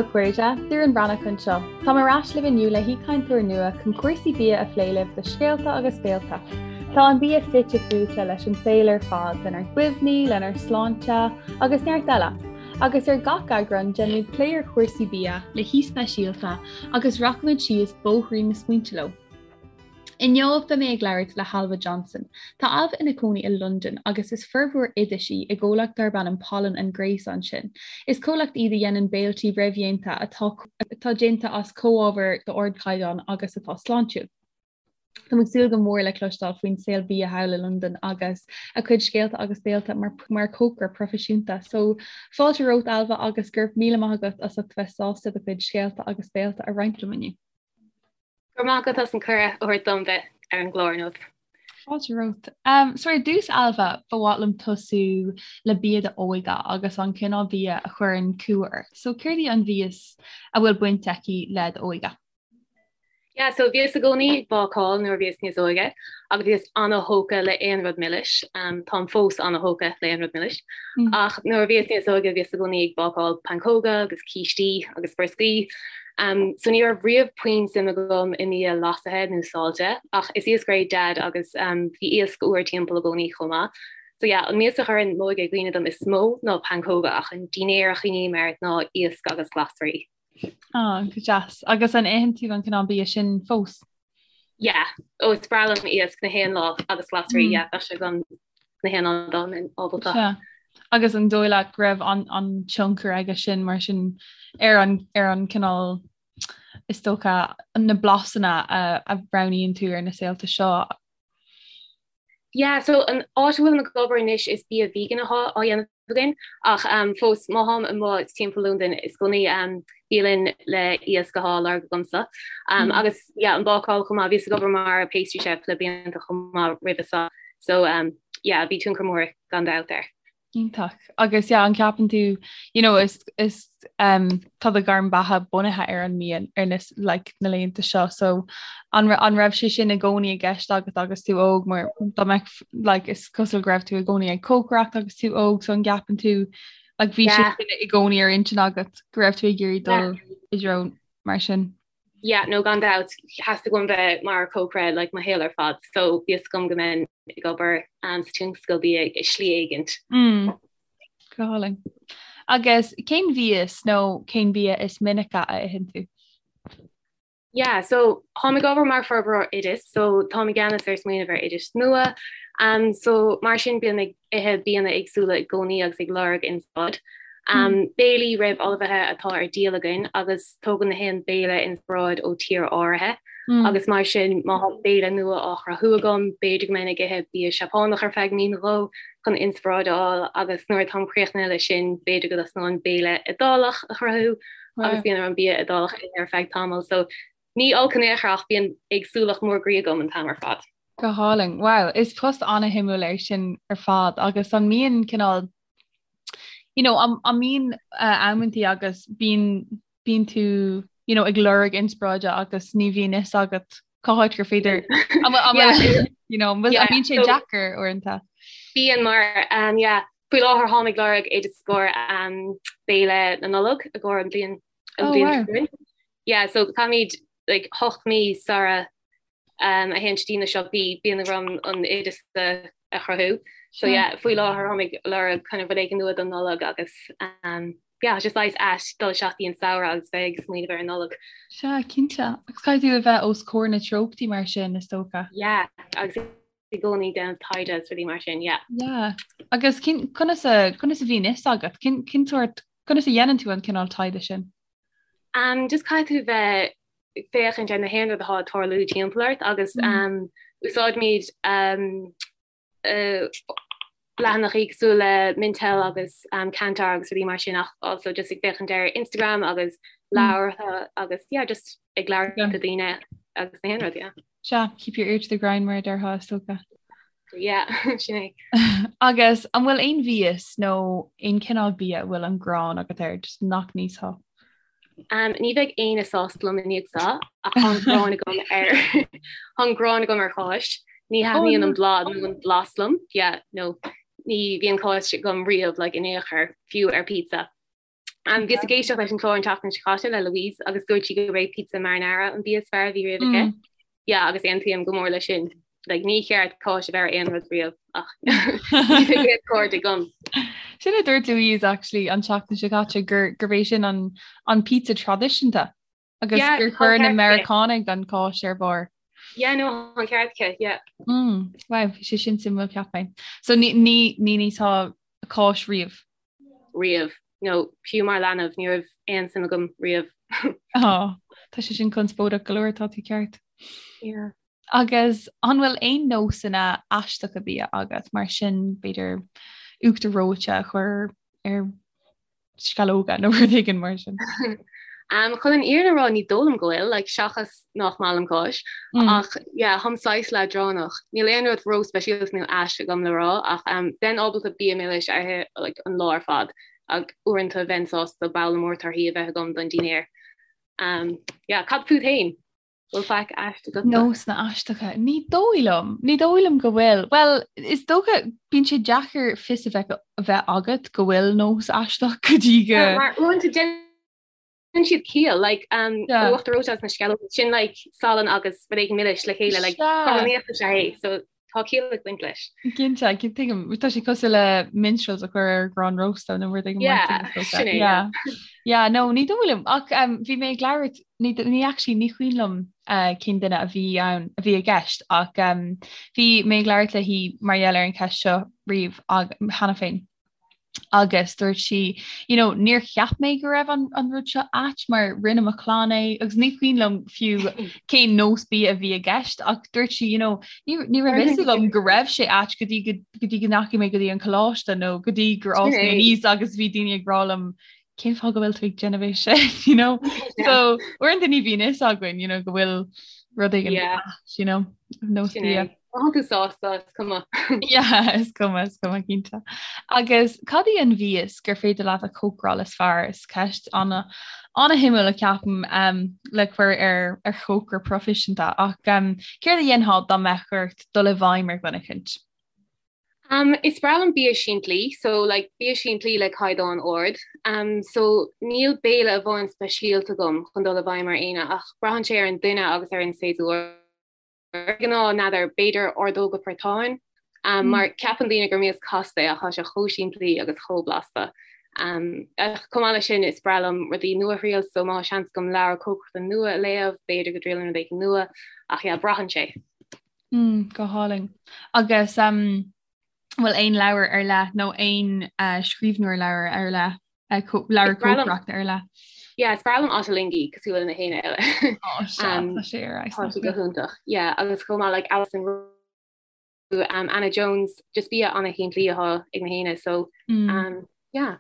daoibh a chairde, Doireann Breathnach anseo. Táim ar ais libh inniu le haoichainteoir nua chun cúrsaí bia a phlé libh do Scéalta agus Béalta. Tá an bia fite fuaite leis an saol ar fad, lenár gcuimhní, lenár sláinte agus neart eile. Agus ar gach eagrán déanaimid plé ar chúrsaí bia le haoi speisialta agus rachaimid síos bóithrín na smaointe leo. Inniu beidh mé ag labhairt le hAilbhe Johnson. Tá Ailbhe ina cónaí i Londain agus is forbróir oidis í i gcomhlacht darb ainm Pollen and Grace ansin. Is comhlacht iad a dhéanann béiltí réamhdhéanta atá atá déanta as comhábhair d'ardchaighdeán agus atá sláintiúil. Táim ag súil go mór le cloisteáil faoin saol bia thall i Londain agus a cuid scéalta agus béalta mar mar chócaire proifisiúnta. So fáilte romhat Ailbhe agus go raibh míle maith agat as ucht bheith sásta do chuid scéalta agus béalta a roinnt liom inniu. Go raibh maith agat as an cuireadh a thabhairt dom bheith ar an gclár inniu. Fáilte romhat. Um, so ar dtús Ailbhe, ba mhaith liom tosú le bia d'óige agus an cineál bia a chuireann cumha ort. So céard í an mhias a bhfuil baint aici le d'óige? Yeah, so bhíos i gcónaí ag bácáil nuair a bhíos níos óige agus bhíos ana-thógtha le aon rud milis. Um, táim fós ana-thógtha le aon rud milis. Mm. Ach nuair a bhíos níos óige bhíos i gcónaí ag bácáil pancóga agus cístí agus brioscaí. So ní raibh riamh puinn suim agam i mbia leasaithe nó saillte, ach is iascaire é Dad agus bhí iasc úr timpeall i gcónaí chomh maith. So yeah, an mias a chuireann m'óige i gcuimhne dom is mó ná pancóga ach an dinnéar a chuimhním air ná iasc agus glasraí. Ah, go deas. Agus an itheann tú an cineál bia sin fós? Yeah, ó is breá liom iasc na haon lá agus glasraí, mm. yeah, bheadh sé agam na haon lá dá mbeinn ábalta. Yeah. Agus an dóigh leat go raibh an, an tionchar aige sin mar sin ar an, ar an cineál is dócha na blasanna a, a roghnaíonn tú ar na saolta seo? Yeah, so an áit a bhfuilim ag obair anois is bia vegan atá á dhéanamh againn ach um, fós má tháim amuigh timpeall Londain is i gcónaí um, bialann le iasc atá á lorg agamsa. Um, mm. Agus yeah, an bácáil chomh maith bhíos ag obair mar pastry chef le blianta chomh maith roimhe seo. So um, yeah, bhí tionchar mór gan dabht air. Iontach. Agus yeah, an ceapann tú, you know, is, is um, tá do ghairm beatha bunaithe ar an mbia ar na, like, na laethanta seo, so an, an raibh sé sin i gcónaí i gceist agat agus tú óg mar dá mbeadh, like, is cosúil go raibh tú i gcónaí ag cócaireacht agus tú óg, so an gceapann tú like, bhí sé sin i gcónaí ar intinn agat go raibh tú ag iarraidh dul i dtreo mar sin? Yeah, no gan dabht, theastaigh uaim bheith mar chócaire like mo shaol ar fad, so bhí fhios agam go mbeinn ag obair um, sa tionscal bia i slí éigint. Mm. Go hálainn. Agus cén mhias nó cén bia is minice a itheann tú? Yeah, so táim ag obair mar forbróir oideas, so táim i gceannas ar smaoineamh ar oidis nua. Um, so mar sin bím ag ithe bianna éagsúla i gcónaí agus ag lorg inspioráid. Um, béilí réamhullmhaithe atá ar díol againn agus tógann na haon béile inspioráid ó tír áirithe. Mm. Agus mar sin má tá béile nua á chruthú agam, b'fhéidir go mbeinn ag ithe bia Seapánach ar feadh mí nó dhó chun inspioráid a fháil agus nuair atáim críochnaithe leis sin, b'fhéidir go dtosnóinn béile Iodálach a chruthú agus bíonn orm bia Iodálach a ithe ar feadh tamaill. So ní olc in aon chor ach bíonn éagsúlacht mór groí agam an t-am ar fad. Go hálainn. Wow, is post an-shuimiúil é sin ar fad agus an mbíonn cineál you know, an mbíonn uh, amantaí agus bíonn bíonn tú you know, ag lorg inspioráide agus ní bhíonn fhios agat cá háit gur féidir you know, an bíonn sé deacair uaireanta. Bíonn mar um, yeah, faoi láthair táim ag lorg oideas i gcomhair um, béile na Nollag i gcomhair an bhliain an oh, bhliain wow. Yeah, so caithfimid like, 8 mí sara um, a théann dtí na siopaí bíonn orm an oideas a, a chruthú. So yeah, faoi láthair táim ag lorg kind of rud éigin nua don Nollag agus um, yeah, just saghas ait dul isteach dtí an samhradh agus bheith ag smaoineamh ar an Nollag. Sea, cinnte. Agus caithfidh tú a bheith os comhair na treochtaí mar sin, is dócha. Yeah, agus i gcónaí déanamh taighde agus rudaí mar sin, yeah. Yeah. Agus cin, conas a, conas a bhíonn fhios agat? Cin, cin sórt, conas a dhéanann tú an cineál taighde sin? Um, just caithfidh tú bheith ag féachaint ar na haon rud atá ag tarlú timpeall ort agus mm. um, úsáidimid um, uh, leathanachaí cosúil le Mintel agus um, Kantar agus rudaí mar sin ach also just ag féachaint ar Instagram agus mm. leabhartha agus yeah, just ag labhairt le daoine agus na haon rud, yeah. Sea, keep your ear to the ground mar a déarfá is dócha. Yeah, sin é. Agus an bhfuil aon mhias nó aon cineál bia a bhfuil an ghráin agat air, just nach n-íosfá? Um, ní bheidh éinne sásta liom i ndiaidh seo ach tá an ghráin agam ar tá an ghráin agam ar cháis. Ní oh, thaitníonn an bláth nó an blas liom, yeah, no, ní bhíonn cáis agam riamh like, in aon chor, fiú ar pizza. Um, bhíos ag éisteacht leis an chlár an tseachtain seo caite le Louise agus dúirt sí gurb é pizza marinara an bia is fearr a bhí riamh aici. Mm. Yeah, agus aontaím go mór leis sin. Like, ní cheart cáis a bheith ar aon rud riamh ach níl aon cairde agam. Sin a dúirt Louise actually an tseachtain seo caite gur gurb é sin an, an pizza traidisiúnta agus yeah, gur chuir na Meiriceánaigh an cáis ar barr. Yeah, no, an ceart aici, yeah. Mm, wow, bhí sé sin suimiúil cheap mé. So ní ní ní ní cáis riamh. Riamh. No, fiú mar leanbh, ní raibh aon suim agam riamh. Ó, tá sé sin conspóideach go leor, tá tú ceart. Yeah. Agus an bhfuil aon nósanna aisteacha bia agat, mar sin b'fhéidir uachtar reoite a chur ar sceallóga nó rud éigin mar sin? Um, chun an fhírinne a rá ní dóigh liom go bhfuil, like, seachas nach maith liom cáis, mm. ach yeah, táim saghas leadránach. Níl aon rud ró-speisialta nó ait agam le rá ach um, bheinn ábalta bia milis a ithe like, an lá ar fad ach uaireanta bheinn sásta babhla mór torthaí a bheith agam don dinnéar. Um, yeah, cad fút féin? Bhfuil faic ait agat? Nósanna aisteacha? Ní dóigh liom. Ní dóigh liom go bhfuil. Bhuel, is dócha, bíonn sé deacair fios a bheith a bheith agat go bhfuil nós aisteach go dtí go. Mar uaireanta déanann siad ciall, like, um, yeah. uachtar reoite agus na sceallóga, sin like salann agus rud éigin milis le chéile, like, cothromaíocht is ea é, so tá ciall ag baint leis. Cinnte, tuigim, tá sé cosúil le Minstrels a chur ar ghrán rósta nó rud éigin mar sin, is dócha. Sin é, yeah. Yeah, no, ní dóigh liom, ach um, bhí mé ag labhairt, ní, ní actually, ní cuimhin liom uh, cén duine a bhí ann, a bhí i gceist, ach um, bhí mé ag labhairt léi mar gheall ar an cheist seo riamh ag, cheana féin. agus dúirt sí you know níor cheap mé go raibh an, an rud seo ait mar rinne mo chlann é agus ní cuimhin liom fiú cén nós bia a bhí i gceist ach dúirt sí you know ní, ní raibh fhios agam go raibh sé ait go dtí go, go dtí go ndeachaigh mé go dtí an coláiste nó go dtí gur fhás mé aníos agus bhí daoine ag rá liom cén fáth go bhfuil tú ag déanamh é sin you know so uaireanta ní bhíonn fhios againn you know go bhfuil rud éigin yeah. you know nós bia. Tá tú sásta is cuma. Yeah, is cuma is cuma cinnte. Agus cad í an mhias gur féidir leat a chócaráil is fearr is ceist ana ana-shuimiúil a ceapaim um, le cur ar ar chócaire proifisiúnta ach um, céard a dhéanfá dá mbeadh ort dul i bhfeidhm ar dhuine eicínt? Um, is breá liom bia simplí, so like bia simplí le caighdeán ard. Um, so níl béile amháin speisialta agam chun dul i bhfeidhm ar éinne ach braitheann sé ar an duine agus ar an séasúr. De ghnáth, n'fheadar, b'fhéidir ordóga portáin, um, mm. mar ceapann daoine gur mias casta é ach tá sé chomh simplí agus chomh blasta. Um, ach chomh maith leis sin is breá liom rudaí nua a thriail, so má tá seans agam leabhar cócaireachta nua a léamh, b'fhéidir go dtriailfinn rud éigin nua, ach yeah, braitheann sé. Mm, go hálainn. Agus um, bhfuil aon leabhar ar leith nó aon uh, scríbhneoir leabhar ar leith uh, leabhar cócaireachta ar leith? Yeah, is breá liom Ottolenghi cosúil le na héinne eile. Oh, um, tá sé ar Tá sé go hiontach. Yeah, agus chomh maith like Alison um, Anna Jones, just bia ana-shimplí atá ag na héinne, so mm. um, yeah.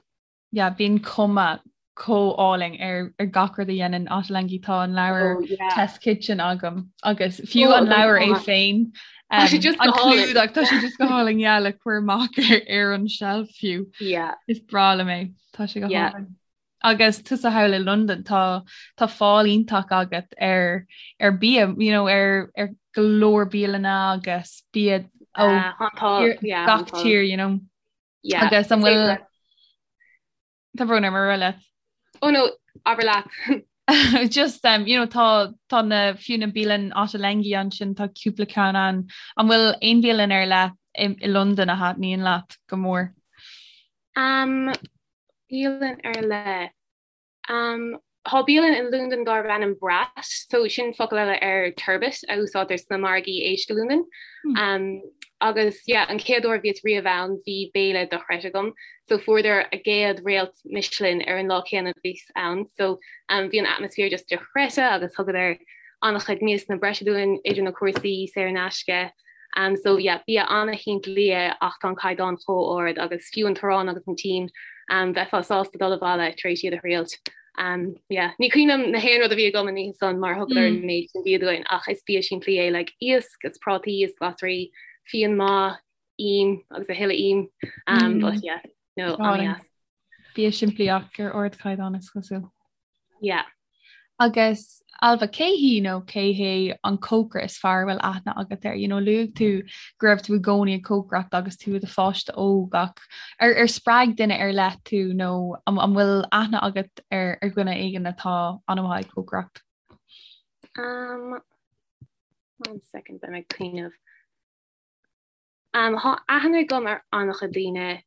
yeah, bíonn cuma chomh álainn ar ar gach rud a dhéanann Ottolenghi tá an leabhar oh, yeah. Test Kitchen agam agus fiú oh, an leabhar é féin um, an clúdach tá sé just go hálainn yeah, le cur amach ar, ar an shelf fiú. Yeah. Is breá liom é tá sé go yeah. hálainn. Agus tusa thall i London tá tá fáil iontach agat ar ar bia you know, ar ar go leor bialanna agus bia ó uh, yeah, gach tír you know. Yeah, Agus an bhfuil Tá brón orm ar leat. Oh no, abair leat. Just um, you know, tá tá na fiú na bialann Ottolenghi ansin tá cúpla ceann ann. An bhfuil aon bhialann ar leith i, i Londain a thaitníonn leat go mór? Um, bialann ar leith. Um, tá bialann i Londain darb ainm Bratt, so sin focal eile ar turbot a úsáidtear sna margaí éisc i Londain. Hmm. Um, agus yeah, an chéad uair bhíos riamh ann bhí béile dochreidte agam, so fuaireadar a gcéad réalt Michelin ar an lá céanna bhíos ann, so um, bhí an atmaisféar just dochreidte agus thugadar an-chuid miasanna breise dúinn idir na cúrsaí saor in aisce. Um, so yeah, bia an-shimplí é ach tá an caighdeán chomh ard agus fiú an t-arán agus an t-im um, bheifeá sásta dul abhaile tar éis iad a thriailt. Um, yeah. Ní cuimhin liom na haon rud a bhí agam an oíche san mar thugadar mm. an méid sin bia dúinn ach is bia simplí é like iasc is prátaí is glasraí, fíon maith, im agus a thuilleadh im. Um, mm. But yeah, no, an-deas. Bia simplí ach ar ardchaighdeán is cosúil. Yeah. Agus Ailbhe, cé hí nó cé hé an cócaire is fearr a bhfuil aithne agat air? You know, luaigh tú go raibh tú i gcónaí ag cócaireacht agus tú i do pháiste óg ach ar, ar spreag duine ar leith tú nó an, an bhfuil aithne agat ar, ar dhuine éigin atá an-mhaith ag cócaireacht? Um, one second, beidh mé ag cuimhneamh. Um, Tá aithne agam ar an-chuid daoine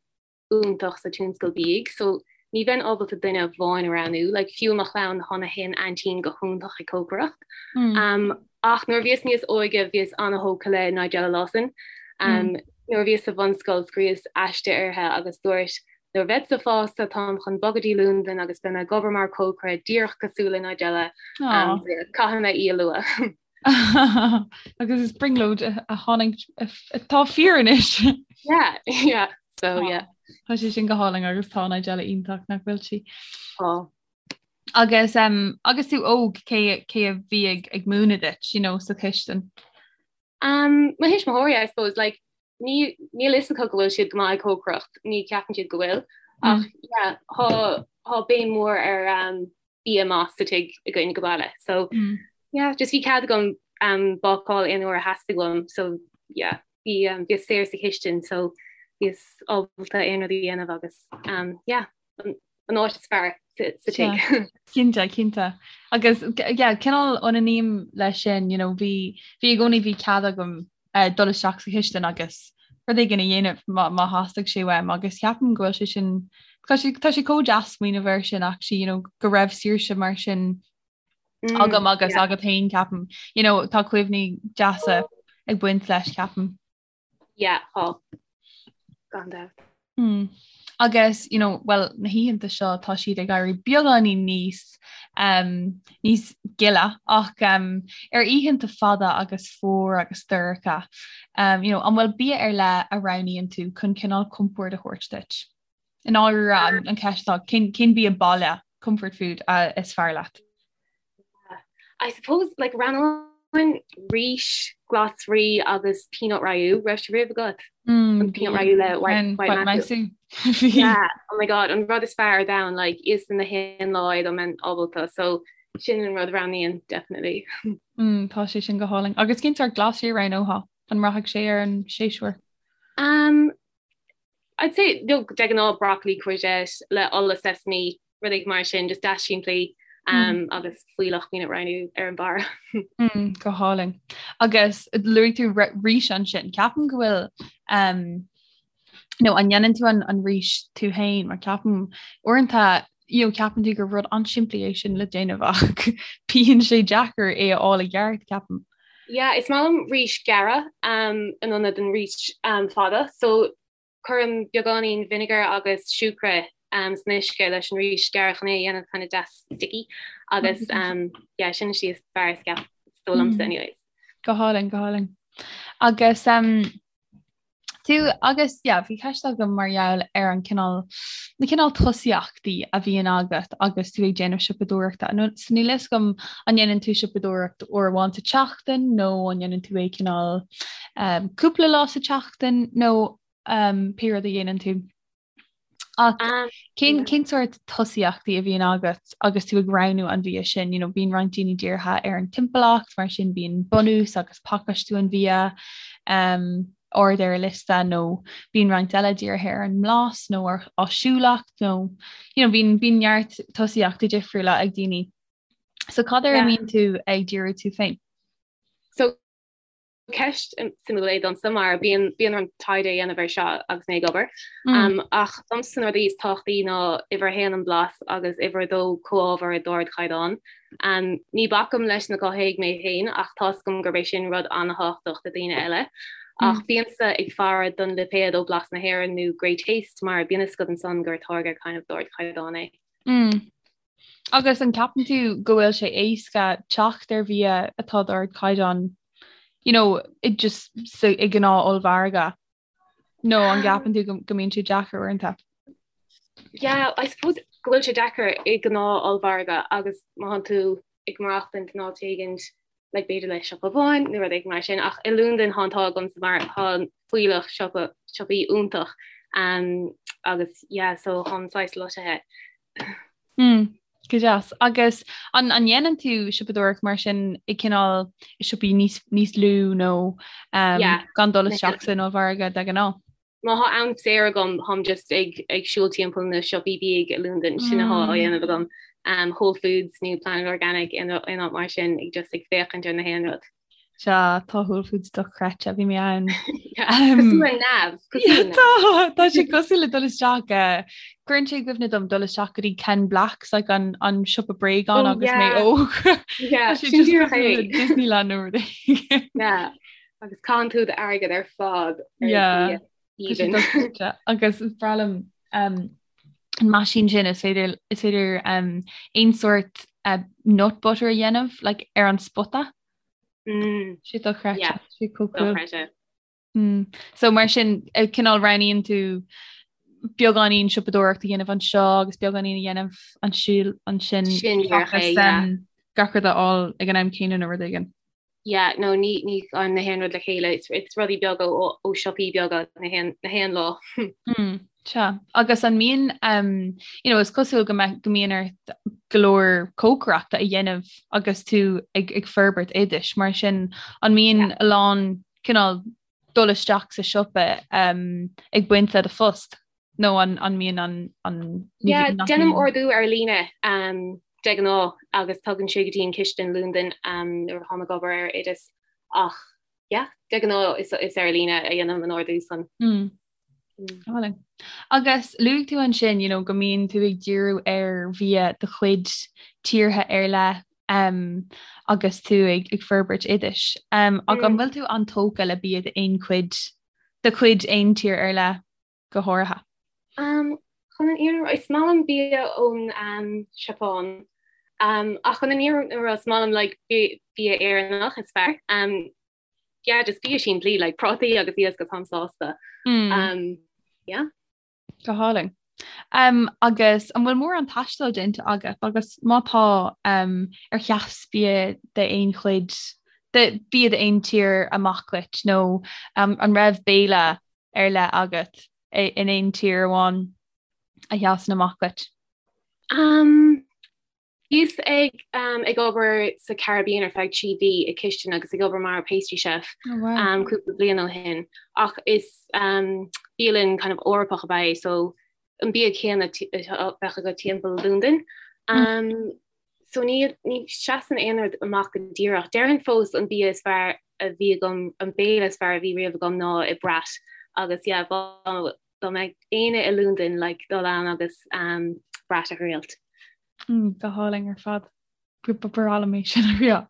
iontach sa tionscal bídh so ní bheinn ábalta duine amháin a roghnú, like fiú mo chlann tá na haon aintín go hiontach ag cócaireacht. Mm. Um, ach nuair a bhíos níos óige bhíos an-thógtha le Nigella Lawson. Um, mm. Nuair a bhíos sa bhunscoil scríos aiste uirthi agus dúirt nuair a bheadsa fásta táim chun bogadh dtí Londain agus beidh mé ag obair mar cócaire díreach cosúil le Nigella um, caithfidh mé í a lua. Agus is brionglóid a tháinig atá fíor anois. Yeah, yeah, so yeah. Tá sé sin go hálainn agus tá Nigella iontach nach bhfuil sí. Tá. Agus um, agus tú óg cé cé a bhí ag ag múineadh duit, you know, sa chistin? Um, mo thuismitheoirí, I suppose, like, ní níl fhios acu go bhfuil siad go maith ag cócaireacht, ní ceapann siad go bhfuil. Ach mm. yeah, tá tá béim mór ar um, bia maith sa tigh againn go baile. So mm. yeah, just bhí cead agam um, bácáil aon uair a theastaigh uaim, so yeah, bhí um, bhíos saor sa chistin, so bhíos ábalta aon rud a dhéanamh agus um, yeah, an, an áit is fearr sa, sa tigh. Cinnte, cinnte. Agus yeah, cineál ionaním leis sin, you know, bhí bhí i gcónaí bhí cead agam uh, dul isteach sa chistin agus rud éigin a dhéanamh má, má theastaigh sé uaim agus ceapaim go bhfuil sé sin tá sé, tá sé chomh deas smaoineamh air sin actually, you know, go raibh saoirse mar sin mm, agam agus yeah. agat féin ceapaim. You know, tá cuimhní deasa ag baint leis ceapaim. Yeah, tá. Gan dabht. Mm. Agus you know, well, na hoícheanta seo tá siad ag éirí beagáinín níos um, níos gile ach um, ar oícheanta fada agus fuar agus dorcha um, you know, an bhfuil bia ar leith a roghnaíonn tú chun cineál compord a thabhairt duit? I ndáiríre an, an ceist atá cén, cén bia baile comfort food uh, is fearr leat? I suppose like roghnóinn rís, glasraí agus peanut rayu raibh sé riamh agat? Mm, An peanut rayu le white, white masu. Yeah, oh my god, an rud is fearr ar domhan like íosfainn na haon lá é dá mbeinn ábalta so sin an rud a roghnaím definitely. Mm, tá sé sin go hálainn. Agus cén sórt glasraí a roghnófá? An mbraithfidh sé ar an séasúr? Um, I'd say no, de ghnáth broccoli courgette le ola sesame rud éigin mar sin, just deas simplí um, agus fuílleach peanut rayu ar an barr. Mm, go hálainn. Agus luaigh tú rís ansin, ceapaim go bhfuil um, nó an ndéanann tú an, an rís tú féin mar ceapaim uaireanta you know, ceapann tú gur rud an-simplí é sin le déanamh ach bíonn sé deacair é a fháil i gceart ceapaim. Yeah, is maith liom rís gearra um, in ionad an rís um, fada, so cuirim beagáinín vinegar agus siúcra um, san uisce leis an rís gearra chun é a dhéanamh kind of deas sticky agus um, yeah, sin is is fearr is ceap is dóigh liomsa mm. anyways. Go hálainn, go hálainn. Agus um, Tú agus yeah, bhí ceist agam mar gheall ar an cineál na cineál tosaíochtaí a bhíonn agat agus tú ag déanamh siopadóireachta. Nó so níl fhios agam an ndéanann tú siopadóireacht uair amháin sa tseachtain nó an ndéanann tú é cineál um, cúpla lá sa tseachtain nó um, pé rud a dhéanann tú. Ach cén cén sórt tosaíochtaí a bhíonn agat agus tú ag roghnú an bhia sin? You know, bíonn roinnt daoine dírithe ar an timpeallacht, mar sin bíonn bunús agus pacáistiú an bhia um, ard ar a liosta nó bíonn roinnt eile dírithe ar an mblas nó ar áisiúlacht nó you know, bíonn bíonn neart tosaíochtaí difriúla ag daoine. So cad air a mbíonn tú ag díriú tú féin? So Ceist suimiúil é domsa mar bíonn bíonn orm taighde a dhéanamh ar seo agus mé ag obair. Mm. Ach domsa na rudaí is tábhachtaí ná uimhir a haon an blas agus uimhir a dó comhábhair d'ardchaighdeán. Um, ní bacaim leis na cothaithigh mé féin ach tá's agam gurb é sin rud an-tábhachtach do daoine eile. Ach mm. bímse ag faire don lipéad ó Blas na hÉireann nó Great Taste mar bíonn fhios agat ansan gur táirge kind of d'ardchaighdeán é. Mm. Agus an gceapann tú go bhfuil sé éasca teacht ar bhia atá d'ardchaighdeán you know, i just sa, i gnáth ollmhargadh? Nó an gceapann tú go, go mbíonn sé deacair uaireanta? Yeah, I suppose go bhfuil sé deacair i gnáth ollmhargadh agus má thánn tú ag maireachtaint in áit éigint like b'fhéidir le siopa amháin nó rud éigin mar sin ach i Londain tá an t-ádh agamsa mar tá fuílleach siopa siopaí iontach um, agus yeah so táim saghas loitithe. Mm. Go deas. Agus an an ndéanann tú siopadóireacht mar sin i cineál i siopaí níos níos lú nó um, yeah. gan dul isteach san ollmhargadh de ghnáth? Má thá am saor agam táim just ag ag siúl timpeall na siopaí bídh i Londain sin athá á dhéanamh agam. Um, Whole Foods nó Planet Organic aon áit mar sin ag just ag féachaint ar na haon rud. Sea, tá Whole Foods dochreidte, bhí mé ann. Cosúil le neamh, cosúil le neamh. Tá, tá sé cosúil le dul isteach, cuireann sé i gcuimhne dom dul isteach go dtí Ken Blacks, like an, an siopa bréagán oh, agus mé óg. Yeah, sin díreach é. Disneyland nó rud éigin. Yeah, agus caitheann tú d'airgead ar fad ar yeah. Even. Agus is breá liom um, an meaisín sin is féidir is féidir um, aon sórt uh, nut butter a dhéanamh like, ar an spota. Mm. Sé dochreidte Yeah, sé chomh cool. dochreidte. Mm. So mar sin eh, cineál roghnaíonn tú beagáinín siopadóireacht a dhéanamh anseo agus beagáinín a dhéanamh ansiúl ansin Sin díreach é, seachas, yeah. um, gach rud a fháil ag an am céanna nó rud éigin. Yeah, no, ní, ní an na haon rud le chéile, it's, it's rudaí beaga ó, ó siopaí beaga na haon, na haon lá. Mm, sea. Agus an mbíonn, um, you know, is cosúil go mbeidh, go mbíonn ort go leor cócaireachta a dhéanamh agus tú ag, ag forbairt oidis, mar sin an mbíonn Yeah. a lán cineál dul isteach sa siopa um, ag baint le do phost? Nó an, an mbíonn an, an, ní Yeah, bhíonn, nach déanaim mbíonn? ordú ar líne um, de ghnáth agus tagann sé go dtí an chistin i Londain um, nuair atháim ag obair ar oideas ach yeah, de ghnáth is, is ar líne a dhéanaim an ordú san. Mm. Álainn. Agus luaigh tú ansin, you know, go mbíonn tú ag díriú ar bhia de chuid tíortha ar leith um, agus tú ag, ag forbairt oidis. Um, ach an Mm. bhfuil tú an-tógtha le bia d'aon chuid, de chuid aon tír ar leith go háirithe? Um, chun an fhírinne a rá, is maith liom bia ón um, Seapáin. Um, ach chun an fhírinne a rá, is maith liom like, bia, bia Éireannach is fearr. Um, yeah, just bia simplí, like prátaí agus iasc agus táim sásta. Mm. Um, yeah. Go hálainn. Um, agus an bhfuil mórán taistil déanta agat agus má tá um, ar sheas bia d'aon chuid de bia d'aon tír amach duit nó um, an raibh béile ar leith agat in aon tír amháin a sheasann amach duit? Um, bhíos ag um, ag obair sa Caribbean ar feadh 3 mhí i cistin agus ag obair mar pastry chef Oh, wow. um, cúpla bliain ó shin ach is um, bialann kind of Eorpach ab ea é so an bia céanna bheadh agat timpeall Londain. Um, so ní, ní seasann aon rud amach go díreach. Déarfainn fós an bia is fearr a bhí agam, an béile is fearr a bhí riamh agam ná i Brat agus yeah, dá mbeadh éinne i Londain like, dul ann agus um, Brat a thriailt. Mm, go hálainn ar fad. Ba bhreá liom é sin a thriail.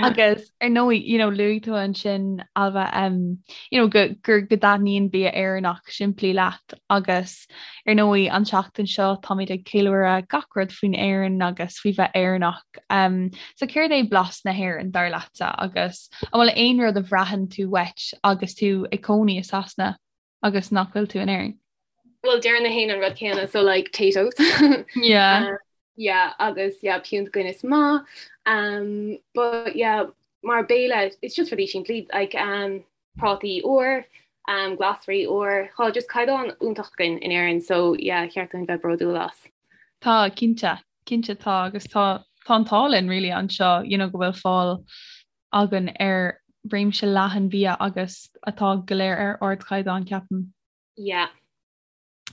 Agus ar ndóigh, you know, luaigh tú ansin Ailbhe um, you know, go, gur go dtaitníonn bia Éireannach simplí leat agus ar ndóigh an tseachtain seo táimid ag ceiliúradh gach rud faoin Éirinn agus faoi bheith Éireannach. Um, so céard é blas na hÉireann dar leatsa agus an bhfuil aon rud a bhraitheann tú uait agus tú ag cónaí i Sasana agus nach bhfuil tú in Éirinn? Well deireann gach éinne an rud céanna so like Taytos. Yeah. Um, yeah, agus yeah, piúnt Guinness maith. Um, but yeah, mar béile it's just rudaí simplí like um, prátaí úr, um, glasraí úr, Tá just caighdeán iontach againn in Éirinn so yeah, cheart dúinn bheith bródúil as. Tá cinnte, cinnte tá agus tá tá an t-ádh linn really anseo, you know, go bhfuil fáil againn ar réimse leathan bia agus atá go léir ar ardchaighdeán, ceapaim. Yeah.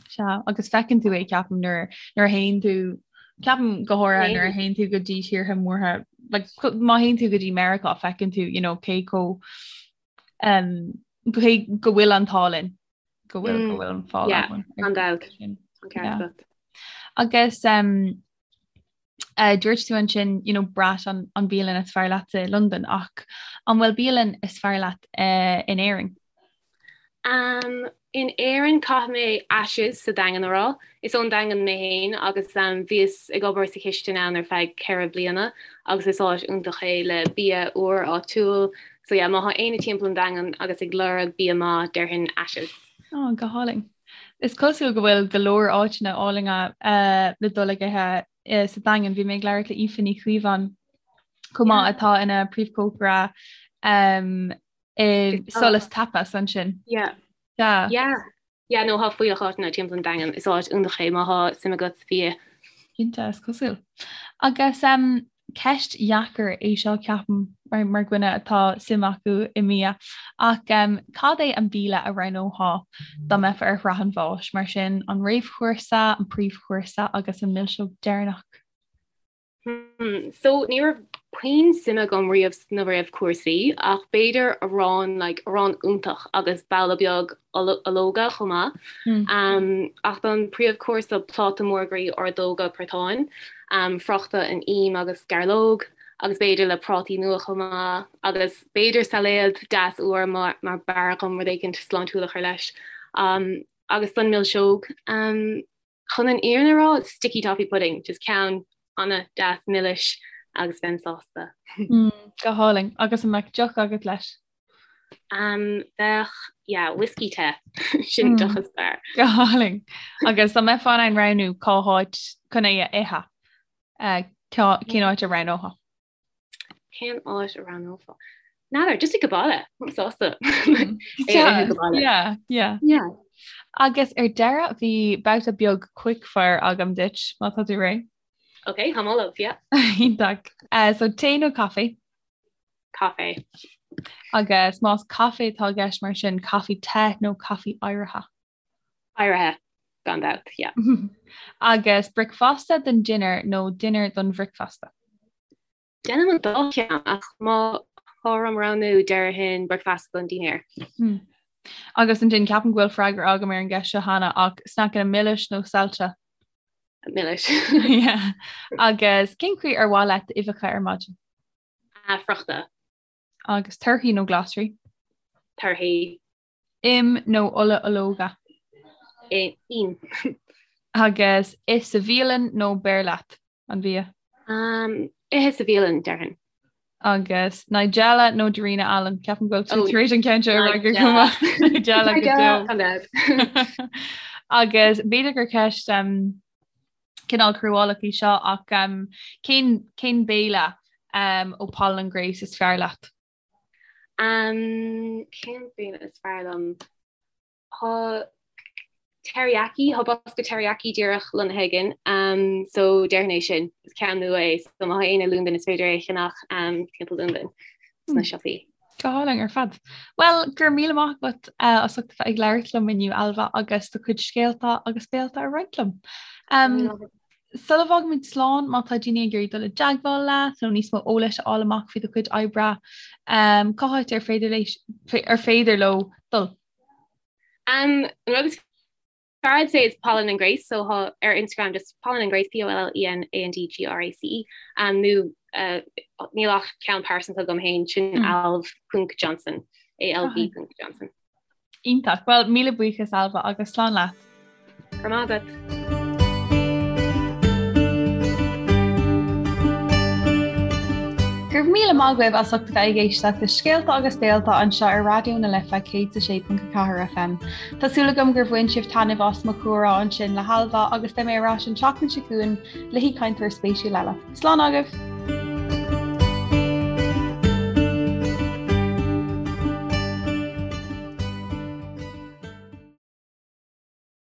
Sea, agus feiceann tú é, ceapaim, nuair nuair a théann tú, ceapaim go háirithe nuair a théann tú go dtí tíortha mórtha, like, má théann tú go dtí Meiriceá, feiceann tú, you know, cé chomh um, cé go bhfuil an t-ádh linn, go bhfuil go bhfuil an fáil Yeah, againn gan dabht. sin. An ceart Yeah. agat. Agus um, Uh, dúirt tú ansin you know, Brat an, an bialann is fearr leat i Londain ach an bhfuil bialann is fearr leat uh, in Éirinn? Um, in Éirinn caithfidh mé Ashes sa Daingean a rá. Is ón Daingean mé féin agus um, bhíos ag obair sa chistin ann ar feadh 4 bliana agus is áit iontach é le bia úr áitiúil. So yeah, má thá éinne timpeall an Daingean agus ag lorg bia maith, déarfainn Ashes. Oh, go hálainn. Is cosúil go bhfuil go leor áiteanna álainne le dul ag ithe sa Daingean. Bhí mé ag labhairt le Aoife Ní Chaomháin chomh maith atá ina príomhchócaire i Solas Tapas ansin. Yeah. Yeah. Yeah. Yeah, no, thá fuílleach áiteanna timpeall an Daingean. Is áit iontach é má thá suim agat sa bhia. Cinnte, is cosúil. Agus um, ceist dheacair é seo ceapaim mar, mar dhuine atá suim acu i mbia ach um, cad é an béile a roghnófá dá mbeifeá ar shraith an bháis, mar sin an réamhchúrsa, an príomhchúrsa agus an milseog deireanach? Hmm, so ní raibh puinn suime agam riamh sna réamhchúrsaí ach b'fhéidir arán like arán iontach agus babhla beag ológa chomh maith. Hmm. Um, ach don príomhchúrsa pláta mór groí ordóga portáin, um, friochta in im agus gairleog agus b'fhéidir le prátaí nua chomh maith agus b'fhéidir sailéad deas úr mar mar b'fhearr dhom rud éicint sláintiúil a chur leis. Um, agus don milseog um, Chun an fhírinne a rá, sticky toffee pudding, just ceann an-deas milis agus bheinn sásta. Mm, go hálainn. Agus an mbeadh deoch agat leis? Um, bheadh, yeah, whiskey te. Sin mm. deoch is fearr. Go hálainn. Agus dá mbeifeá in ann roghnú cá háit chun é a ithe, uh, cén áit a roghnófá? Cén áit a roghnófá? N'fheadar, just ag baile, sásta. Yeah, yeah. Yeah. Agus ar deireadh bhí babhta beag quickfire agam duit má tá tú réidh. Ok, táim ullamh, yeah. Iontach. Uh, so tae nó caife? Caife. Agus más caife atá i gceist mar sin caife te nó caife oighrithe? Oighrithe, gan dabht, yeah. Agus bricfeasta don dinnéar nó dinnéar don bhricfeasta? Déanaim an dá cheann, ach má tá orm roghnú déarfainn bricfeasta don dinnéar. Hmm. Agus ansin ceapaim go bhfuil freagra agam ar an gceist seo cheana ach sneaiceanna milis nó saillte? Milis. Yeah. Agus cén chaoi ar mhaith leat d'uibheacha ar maidin? Ah, friochta. Agus torthaí nó glasraí? Torthaí. Im nó ola ológa? Im. Agus ith sa bhialann nó beir leat an bia? Ithe sa bhialann, déarfainn. Agus Nigella nó Darina Allen? Ceapaim go bhfuil tú tar éis an ceann seo a fhreagairt go maith. Nigella go deo. Agus b'fhéidir gur ceist cineál cruálach í seo ach cén cén béile ó Pollen and Grace is fearr leat? Um, cén béile is fearr liom? Tá teriyaki, tá bosca teriyaki díreach lonnaithe againn, um, so déarfainn é sin, is ceann nua é, so má tá éinne i Londain is féidir é a cheannach um, timpeall Londain sna hmm. siopaí. Go hálainn ar fad. Well, go raibh míle maith agat uh, as ucht a bheith ag labhairt liom inniu Ailbhe agus do chuid scéalta agus béalta a roinnt liom. Um, Sula bhfágaimid slán, má tá daoine ag iarraidh dul i dteagmháil leat nó níos mó eolais a fháil amach faoi do chuid oibre, cá háit ar féidir ar féidir leo dul? Um, an rud is fearr I'd say is Pollen and Grace, so tá ar Instagram just Pollen and Grace, P-O-L-L-E-N-A-N-D-G-R-A-C-E, um, nó uh, níl ach ceann pearsanta agam féin sin mm. Alv ponc Johnson, A-L-V ponc Johnson. Iontach. Bhuel, míle buíochas Ailbhe agus slán leat. Go raibh maith agat. Go raibh míle maith agaibh as ucht a bheith ag éisteacht le Scéalta agus Béalta anseo ar Raidió na Life 106.4 FM. Tá súil agam gur bhain sibh taitneamh as mo chomhrá ansin le hAilbhe agus beidh mé ar ais an tseachtain seo chugainn le haoichainteoir spéisiúil eile. Slán agaibh!